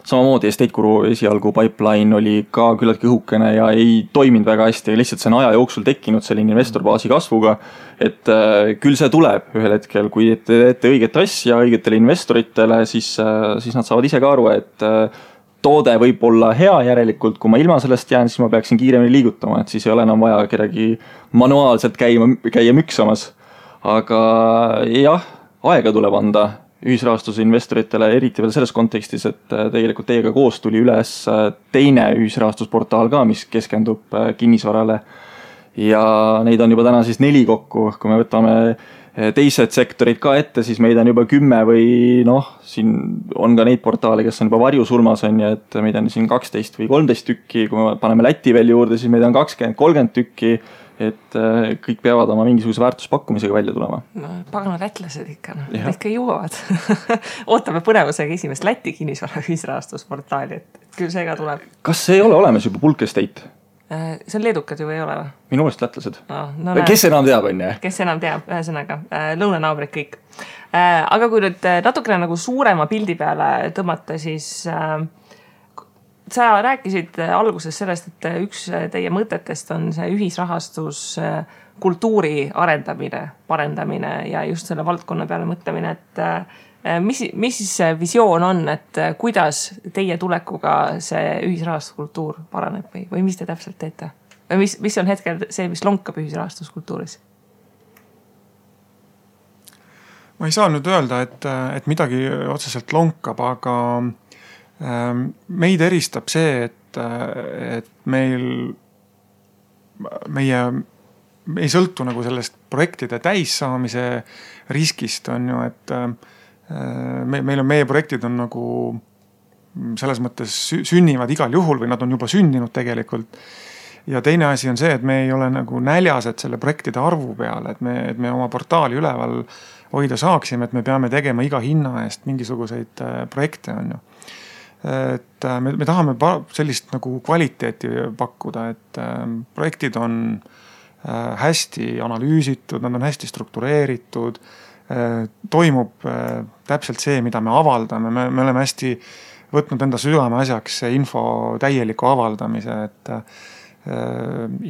Samamoodi Estate Guru esialgu pipeline oli ka küllaltki õhukene ja ei toiminud väga hästi, lihtsalt see on aja jooksul tekkinud selline investorbaasi kasvuga, et küll see tuleb ühel hetkel, kui teete õiget asja õigetele investoritele, siis nad saavad ise ka aru, et toode võib olla hea järelikult, kui ma ilma sellest jään, siis ma peaksin kiiremini liigutama, et siis ei ole enam vaja kedagi manuaalselt käia müksamas. Aga jah, aega tuleb anda ühisrahastuse investoritele, eriti veel selles kontekstis, et tegelikult teiega koos tuli üles teine ühisrahastusportaal ka, mis keskendub kinnisvarale. Ja neid on juba täna siis 4 kokku, kui me võtame teised sektorid ka ette, siis meid on juba 10 või siin on ka neid portaale, kes on juba varjusulmas on ja et meid on siin 12 või 13 tükki, kui me paneme Läti veel juurde, siis meid on 20-30 tükki, et kõik peavad oma mingisuguse väärtuspakkumisega välja tulema. No, pagana lätlased ikka, need ikka jõuavad. Ootame põnevusega esimest Läti kinnisvara ühisrahastusportaali, et küll see ka tuleb. Kas see ei ole olemas juba Bulk Estate? See on leedukad ju ei ole või? Minu meelest lätlased. Kes enam teab, on ju? Kes enam teab, ühesõnaga, lõunanaabrid kõik. Aga kui nüüd natukene nagu suurema pildi peale tõmmata, siis sa rääkisid alguses sellest, et üks teie mõtetest on see ühisrahastus kultuuri arendamine, parendamine ja just selle valdkonna peale mõtlemine, et mis siis visioon on, et kuidas teie tulekuga see ühisrahastuskultuur paraneb või mis te täpselt teete? Või mis on hetkel see, mis lonkab ühisrahastuskultuuris? Ma ei saa nüüd öelda, et midagi otseselt lonkab, aga meid eristab see, et meie ei sõltu nagu sellest projektide täissaamise riskist on ju, et meie projektid on nagu selles mõttes sünnivad igal juhul või nad on juba sündinud tegelikult. Ja teine asi on see, et me ei ole nagu näljased selle projektide arvu peale, et me oma portaali üleval hoida saaksime, et me peame tegema iga hinna eest mingisuguseid projekte on ju. Et me tahame sellist nagu kvaliteeti pakkuda, et projektid on hästi analüüsitud, nad on hästi struktureeritud, toimub täpselt see, mida me avaldame, me oleme hästi võtnud enda südame asjaks info täieliku avaldamise, et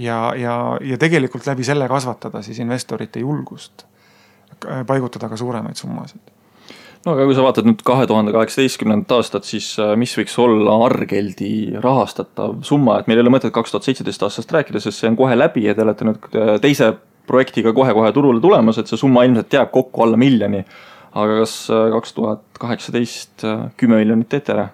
ja tegelikult läbi selle kasvatada siis investorite julgust paigutada ka suuremaid summasid. No aga kui sa vaatad nüüd 2018. aastat, siis mis võiks olla Argeldi rahastatav summa, et meil ei ole mõtet 2017 aastast rääkida, sest see on kohe läbi ja te olete nüüd teise projektiga kohe turule tulemas, et see summa ilmselt jääb kokku alla 1 miljoni. Aga kas 2018 10 miljonit teete ära?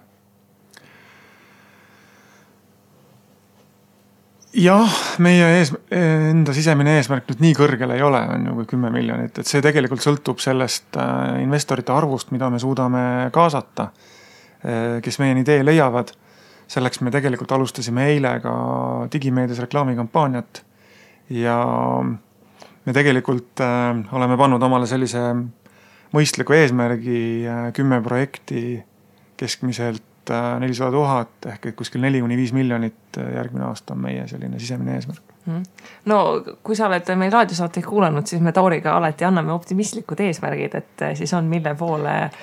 Jah, meie enda sisemine eesmärk nüüd nii kõrgele ei ole, on ju kui 10 miljonit, et see tegelikult sõltub sellest investorite arvust, mida me suudame kaasata, kes meieni tee leiavad. Selleks me tegelikult alustasime eile ka digimeedias reklaamikampaaniat ja me tegelikult oleme pannud omale sellise mõistliku eesmärgi 10 projekti keskmiselt 400 000 ehk kuskil 4-5 miljonit järgmine aasta on meie selline sisemine eesmärk. No kui sa oled meil raadiosaateid kuulanud, siis me Tauriga alati anname optimistlikud eesmärgid, et siis on mille poole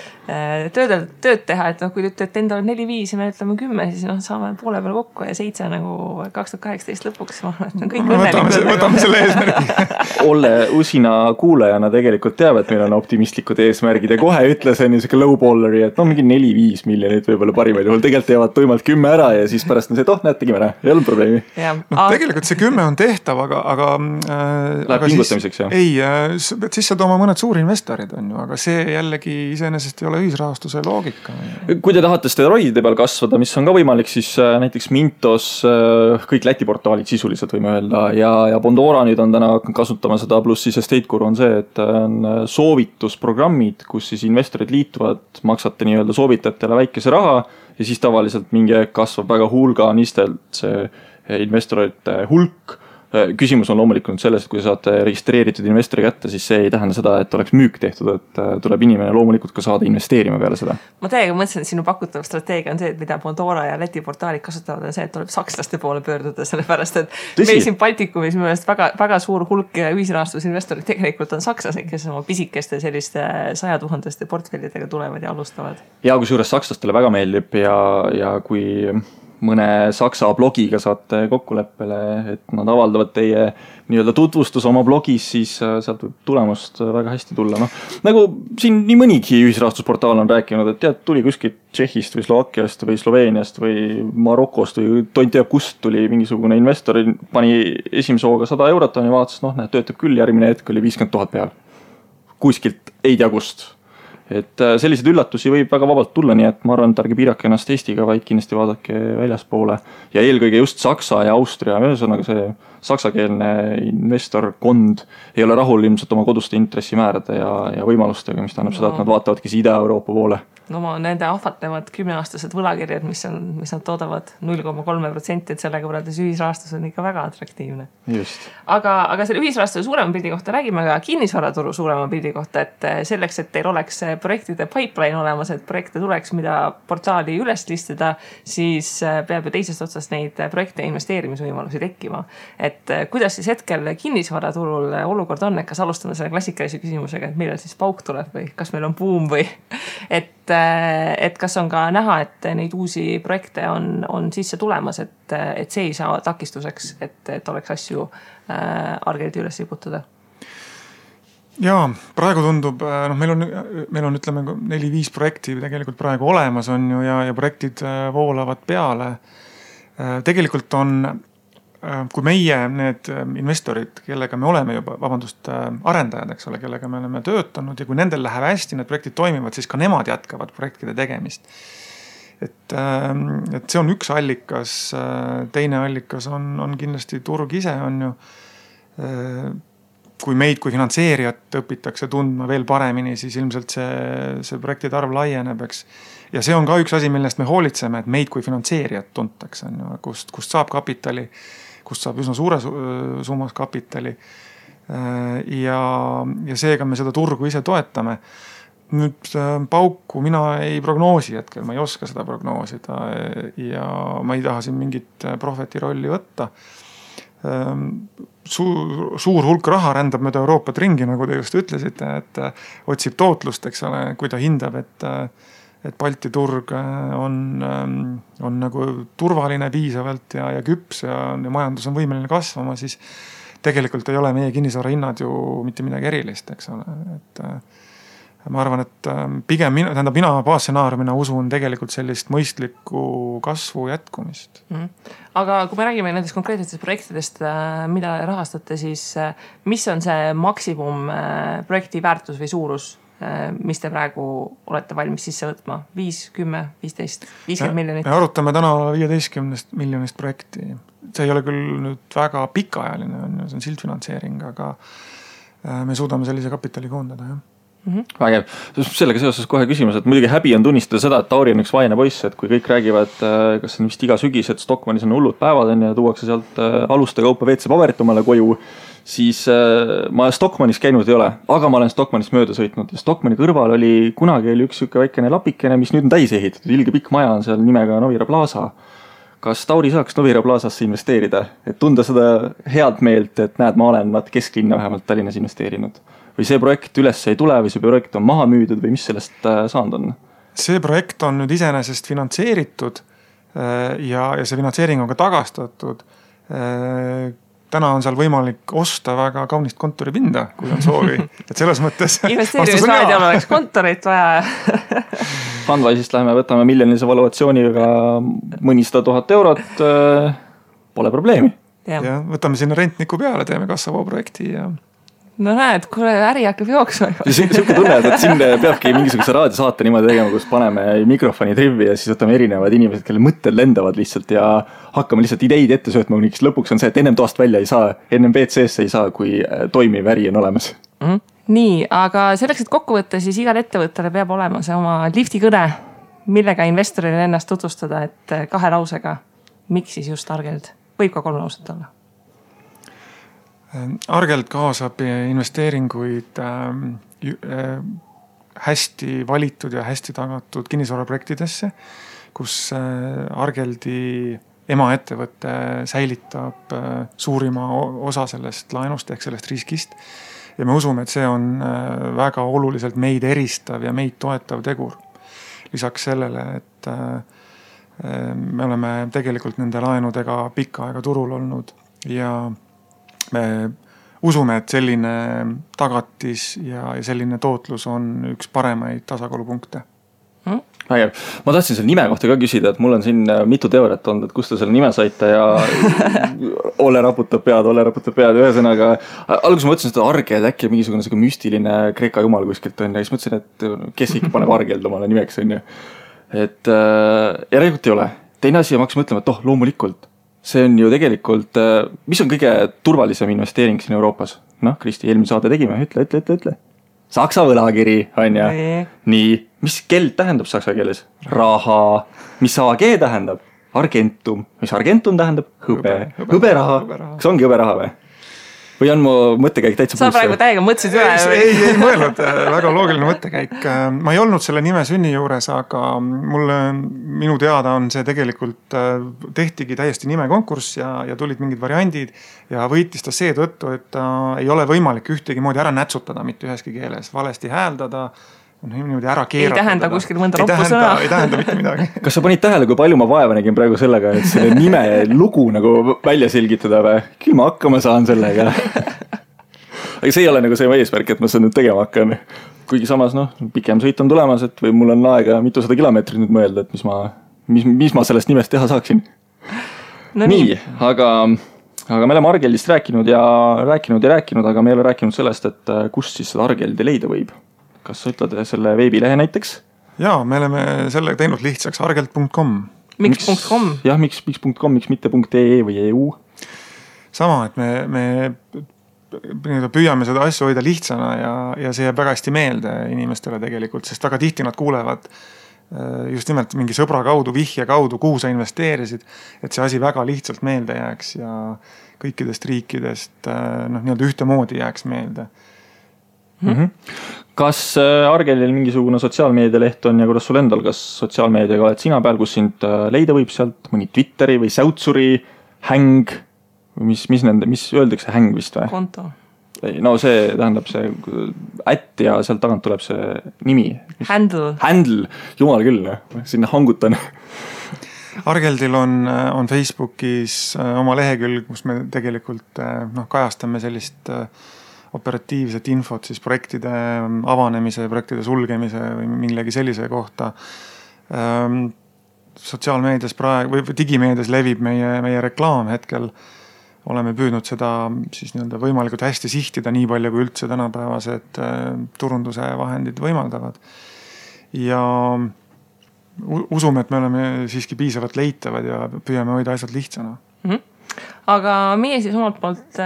tööd teha, et kui te ütlete endale 4-5 ja me ütleme 10, siis saame poole peal kokku ja 7 nagu 2018 lõpuks. Kõik võtame selle eesmärgi. Olle usina kuulajana tegelikult teab, et meil on optimistlikud eesmärgid ja kohe ütles niisugune lowballeri, et mingi 4-5 miljonit võibolla parimal juhul. Tegelikult teevad tuimalt 10 ära ja siis pärast on see, et näed, tegime ära. Ei olnud probleemi. Tegelikult see 10 on tehtav, aga läheb pingutamiseks, jah? Ei, siis saad oma mõned suurinvestorid on ju, aga see jällegi iseenesest ei ole ühisrahastuse loogika. Kui te tahate steroidide peal kasvada, mis on ka võimalik, siis näiteks Mintos, kõik Läti portaalid sisuliselt võime öelda ja Bondora nüüd on täna kasutama seda, pluss siis Estate-Guru on see, et on soovitusprogrammid, kus siis investorid liituvad, maksate nii-öelda soovitajatele väikese raha ja siis tavaliselt mingi kasvab väga hulganistelt see investorite hulk. Küsimus on loomulikult selles, et kui saate registreeritud investori kätte, siis see ei tähenda seda, et oleks müük tehtud, et tuleb inimene loomulikult ka saada investeerima peale seda. Ma täiega mõtlesin, et sinu pakutav strateegia on see, et mida Bondora ja Läti portaalid kasutavad, on see, et tuleb sakslaste poole pöörduda, sellepärast, et meil siin Baltikumis minu meelest väga suur hulk ühisrahastusinvestorid tegelikult on sakslased, kes oma pisikeste selliste 100 000 portfellidega tulevad ja alustavad. Ja kui suures sakslastele väga meeldib ja kui mõne saksa blogiga saate kokkuleppele, et nad avaldavad teie nii-öelda tutvustus oma blogis, siis sealt võib tulemust väga hästi tulla. Nagu siin nii mõnigi ühisrahastusportaal on rääkinud, et tead, tuli kuskilt Tšehhist või Slovakkiast või Sloveeniast või Marokost või tont teab kust tuli mingisugune investor, pani esimese hooga 100 eurot ja vaatas, töötab küll, järgmine hetk oli 50 000 peal. Kuskilt ei tea kust. et selliseid üllatusi võib väga vabalt tulla, nii et ma arvan, et ärge piirake ennast Eestiga, vaid kindlasti vaadake väljaspoole. Ja eelkõige just Saksa ja Austria, ühesõnaga see saksakeelne investorkond ei ole rahul ilmselt oma koduste intressimäärade ja võimalustega, mis tähendab seda, et nad vaatavadki Ida-Euroopa poole. No nende ahvatlevad 10-aastased võlakirjad, mis nad toodavad 0,3%, et sellega võrreldes ühisrahastus on ikka väga atraktiivne. Just. Aga selle ühisrahastuse suurema pildi kohta räägime ka kinnisvaraturu suurema pildi kohta, et selleks, et teil oleks projektide pipeline olemas, et projekte tuleks, mida portaali üles listida, siis peab ju teisest otsast neid projekte investeerimisvõimalusi tekkima. Et kuidas siis hetkel kinnisvaraturul olukord on, et kas alustame selle klassikalise küsimusega, et millal siis pauk tuleb või kas meil on buum või et kas on ka näha, et neid uusi projekte on sisse tulemas, et see ei saa takistuseks, et oleks asju argeldi üles liputada? Jaa, praegu tundub, meil on ütleme 4-5 projekti tegelikult praegu olemas on ju ja projektid voolavad peale. Tegelikult on, kui meie need investorid, kellega me oleme juba, arendajad, eks ole, kellega me oleme töötanud ja kui nendel läheb hästi, need projektid toimivad, siis ka nemad jätkavad projektide tegemist. Et see on üks allikas, teine allikas on kindlasti turg ise on ju, kui meid kui finantseerijat õpitakse tundma veel paremini, siis ilmselt see projektide arv laieneb, eks. Ja see on ka üks asi, millest me hoolitseme, et meid kui finantseerijat tuntakse, kust saab kapitali, kust saab üsna suure summas kapitali ja seega me seda turgu ise toetame. Nüüd pauku mina ei prognoosi hetkel, ma ei oska seda prognoosida ja ma ei taha siin mingit profeti rolli võtta. Suur hulk raha rändab mööda Euroopat ringi, nagu te just ütlesite, et otsib tootlust, eks ole, kui ta hindab, et Balti turg on nagu turvaline piisavalt ja küps ja majandus on võimeline kasvama, siis tegelikult ei ole meie kinnisvara hinnad ju mitte midagi erilist, eks ole. Et ma arvan, et pigem mina baasstsenaariumina usun tegelikult sellist mõistlikku kasvu jätkumist. Aga kui me räägime nendest konkreetsetest projektidest, mida rahastate, siis mis on see maksimum projekti väärtus või suurus, mis te praegu olete valmis sisse võtma? 5, 10, 15, 50 miljonit? Me arutame täna 15 miljonist projekti. See ei ole küll nüüd väga pikaajaline, see on sildfinantseering, aga me suudame sellise kapitali koondada, jah. Vägev. Sellega seoses kohe küsimus, et muidugi häbi on tunnistada seda, et Tauri on üks vaene poiss, et kui kõik räägivad, kas on vist iga sügis, et Stockmannis on hullud päevad ja tuuakse sealt aluste kaupa WC-paberit omale koju, siis ma Stockmannis käinud ei ole, aga ma olen Stockmannis mööda sõitnud ja Stockmanni kõrval kunagi oli üks siuke väikene lapikene, mis nüüd on täis ehitatud, ilge pikk maja on seal nimega Novira Plaza. Kas Tauri saaks Novira Plazasse investeerida, et tunda seda head meelt, et näed, ma olen kesklinna vähemalt Tallinnas investeerinud? Või see projekt üles ei tule või see projekt on maha müüdud või mis sellest saanud on? See projekt on nüüd iseenesest finantseeritud ja see finantseering on ka tagastatud. Täna on seal võimalik osta väga kaunist kontoripinda, kui on soovi. Et selles mõttes... Investeerimisraadial oleks kontorit vaja. Fundwise'ist läheme, võtame miljonilise valuatsiooniga mõnisada 1000 eurot. Pole probleemi. Ja võtame sinna rentniku peale, teeme Kassavoo projekti ja... No näed, kuule, äri hakkab jooksma. Siuke tunne, et siin peabki mingisuguse raadiosaate niimoodi tegema, kus paneme mikrofoni trivi ja siis võtame erinevad inimesed, kelle mõtted lendavad lihtsalt ja hakkame lihtsalt ideid ette söötma, kuniks lõpuks on see, et ennem toast välja ei saa, ennem BCS ei saa, kui toimiv äri on olemas. Nii, aga selleks, et kokku võtta, siis igal ettevõttele peab olema see oma liftikõne, millega investorile ennast tutvustada, et 2 lausega, miks siis just Argeld? Võib ka 3 lauset olla. Argeld kaasab investeeringuid hästi valitud ja hästi tagatud kinnisvaraprojektidesse, kus Argeldi emaettevõte säilitab suurima osa sellest laenust ehk sellest riskist. Ja me usume, et see on väga oluliselt meid eristav ja meid toetav tegur. Lisaks sellele, et me oleme tegelikult nende laenudega pikka aega turul olnud ja me usume, et selline tagatis ja selline tootlus on üks paremaid tasakaalupunkte. Vägev. Ma tahtsin selle nime kohta ka küsida, et mul on siin mitu teooriat olnud, et kust te selle nime saite ja Olle raputab pead, ühesõnaga. Alguses ma mõtlesin, et Argeld äkki mingisugune müstiline kreeka jumal kuskilt on ja siis mõtlesin, et kes ikka paneb Argeld omale nimeks on ju. Et järelikult ei ole. Teine asi ja ma hakkasin mõtlema, et loomulikult. See on ju tegelikult, mis on kõige turvalisem investeering siin Euroopas? Kristi, eelmine saade tegime, ütle. Saksa võlakiri, on ju. Nii, mis keld tähendab saksa keeles? Raha. Mis AG tähendab? Argentum. Mis Argentum tähendab? Hõberaha. Kas ongi hõberaha või? Või on mu mõttekäik täitsa sa praegu täiega mõtlesid üle? Ei mõelnud, väga loogiline mõttekäik. Ma ei olnud selle nime sünni juures, aga minu teada on see tegelikult tehtigi täiesti nimekonkurss ja tulid mingid variandid ja võitis ta seetõttu, et ei ole võimalik ühtegi moodi ära nätsutada mitte üheski keeles, valesti hääldada, niimoodi ära keeratada. Ei tähenda kuskil mõnda roppu sõna. Ei tähenda mitte midagi. Kas sa panid tähele, kui palju ma vaeva nägin praegu sellega, et selle nime lugu nagu välja selgitada või? Küll ma hakkama saan sellega. Aga see ei ole nagu see eesmärk, et ma seda nüüd tegema hakkan. Kuigi samas, pikem sõit on tulemas, et või mul on aega mitusada kilomeetrit nüüd mõelda, et mis ma sellest nimest teha saaksin. No nii, aga me oleme Argeldist rääkinud, aga me ei ole rääkinud sellest, et kust siis seda Argeldi leida võib. Kas sa ütled selle veebilehe näiteks? Jaa, me oleme selle teinud lihtsaks argeld.com. Miks.com? Jah, miks.com, miks mitte .ee või EU? Sama, et me püüame seda asju hoida lihtsana ja see jääb väga hästi meelde inimestele tegelikult, sest väga tihti nad kuulevad just nimelt mingi sõbra kaudu, vihje kaudu, kuhu sa investeerisid, et see asi väga lihtsalt meelde jääks ja kõikidest riikidest nii-öelda ühtemoodi jääks meelde. Kas Argeldil mingisugune sotsiaalmeedialeht on ja kuidas sul endal, kas sotsiaalmeediaga oled sina peal, kus sind leida võib sealt mõni Twitteri või Säutsuri häng, mis öeldakse häng vist või? Konto. No see tähendab see ätt ja sealt tagant tuleb see nimi. Handle, jumal küll, sinna hangutan. Argeldil on Facebookis oma lehekülg, kus me tegelikult kajastame sellist operatiivset infot siis projektide avanemise, projektide sulgemise või millegi sellise kohta. Sotsiaalmeedias praegu või digimeedias levib meie reklaam hetkel. Oleme püüdnud seda siis võimalikult hästi sihtida nii palju kui üldse tänapäevased turunduse vahendid võimaldavad. Ja usume, et me oleme siiski piisavalt leitavad ja püüame hoida asjad lihtsana. Aga meie siis omalt poolt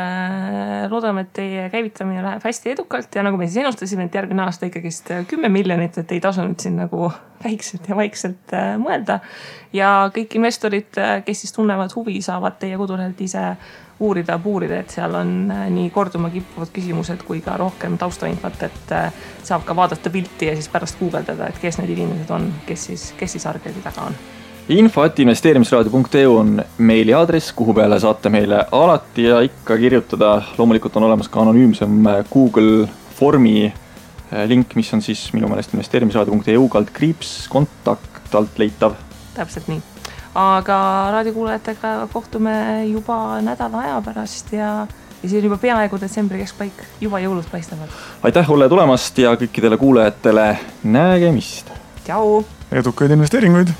loodame, et teie käivitamine läheb hästi edukalt ja nagu me siis ennustasime, et järgmine aasta ikkagist 10 miljonit, et ei tasu nüüd siin nagu väikselt ja vaikselt mõelda. Ja kõik investorid, kes siis tunnevad huvi, saavad teie kodulehelt ise uurida, et seal on nii korduma kippuvad küsimused kui ka rohkem taustainfot, et saab ka vaadata pilti ja siis pärast guugeldada, et kes need inimesed on, kes siis Argeldi taga on. info@investeerimisraadio.eu on meili aadress, kuhu peale saate meile alati ja ikka kirjutada. Loomulikult on olemas ka anonüümsem Google formi link, mis on siis minu meelest investeerimisraadio.eu /kontakt alt leitav. Täpselt nii. Aga raadiokuulajatega kohtume juba nädala aja pärast ja siis on juba peaaegu detsembri keskpaik, juba jõulud paistavad. Aitäh Olle tulemast ja kõikidele kuulajatele nägemist. Tšau! Edukaid investeeringuid!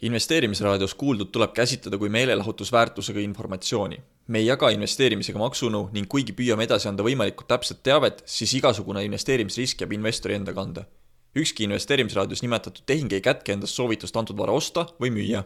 Investeerimisraadios kuuldud tuleb käsitleda kui meelelahutusväärtusega informatsiooni. Me ei jaga investeerimisega maksunu ning kuigi püüame edasi anda võimalikult täpset teavet, siis igasugune investeerimisrisk jääb investori enda kanda. Ükski investeerimisraadios nimetatud tehing ei kätke endast soovitust antud vara osta või müüa.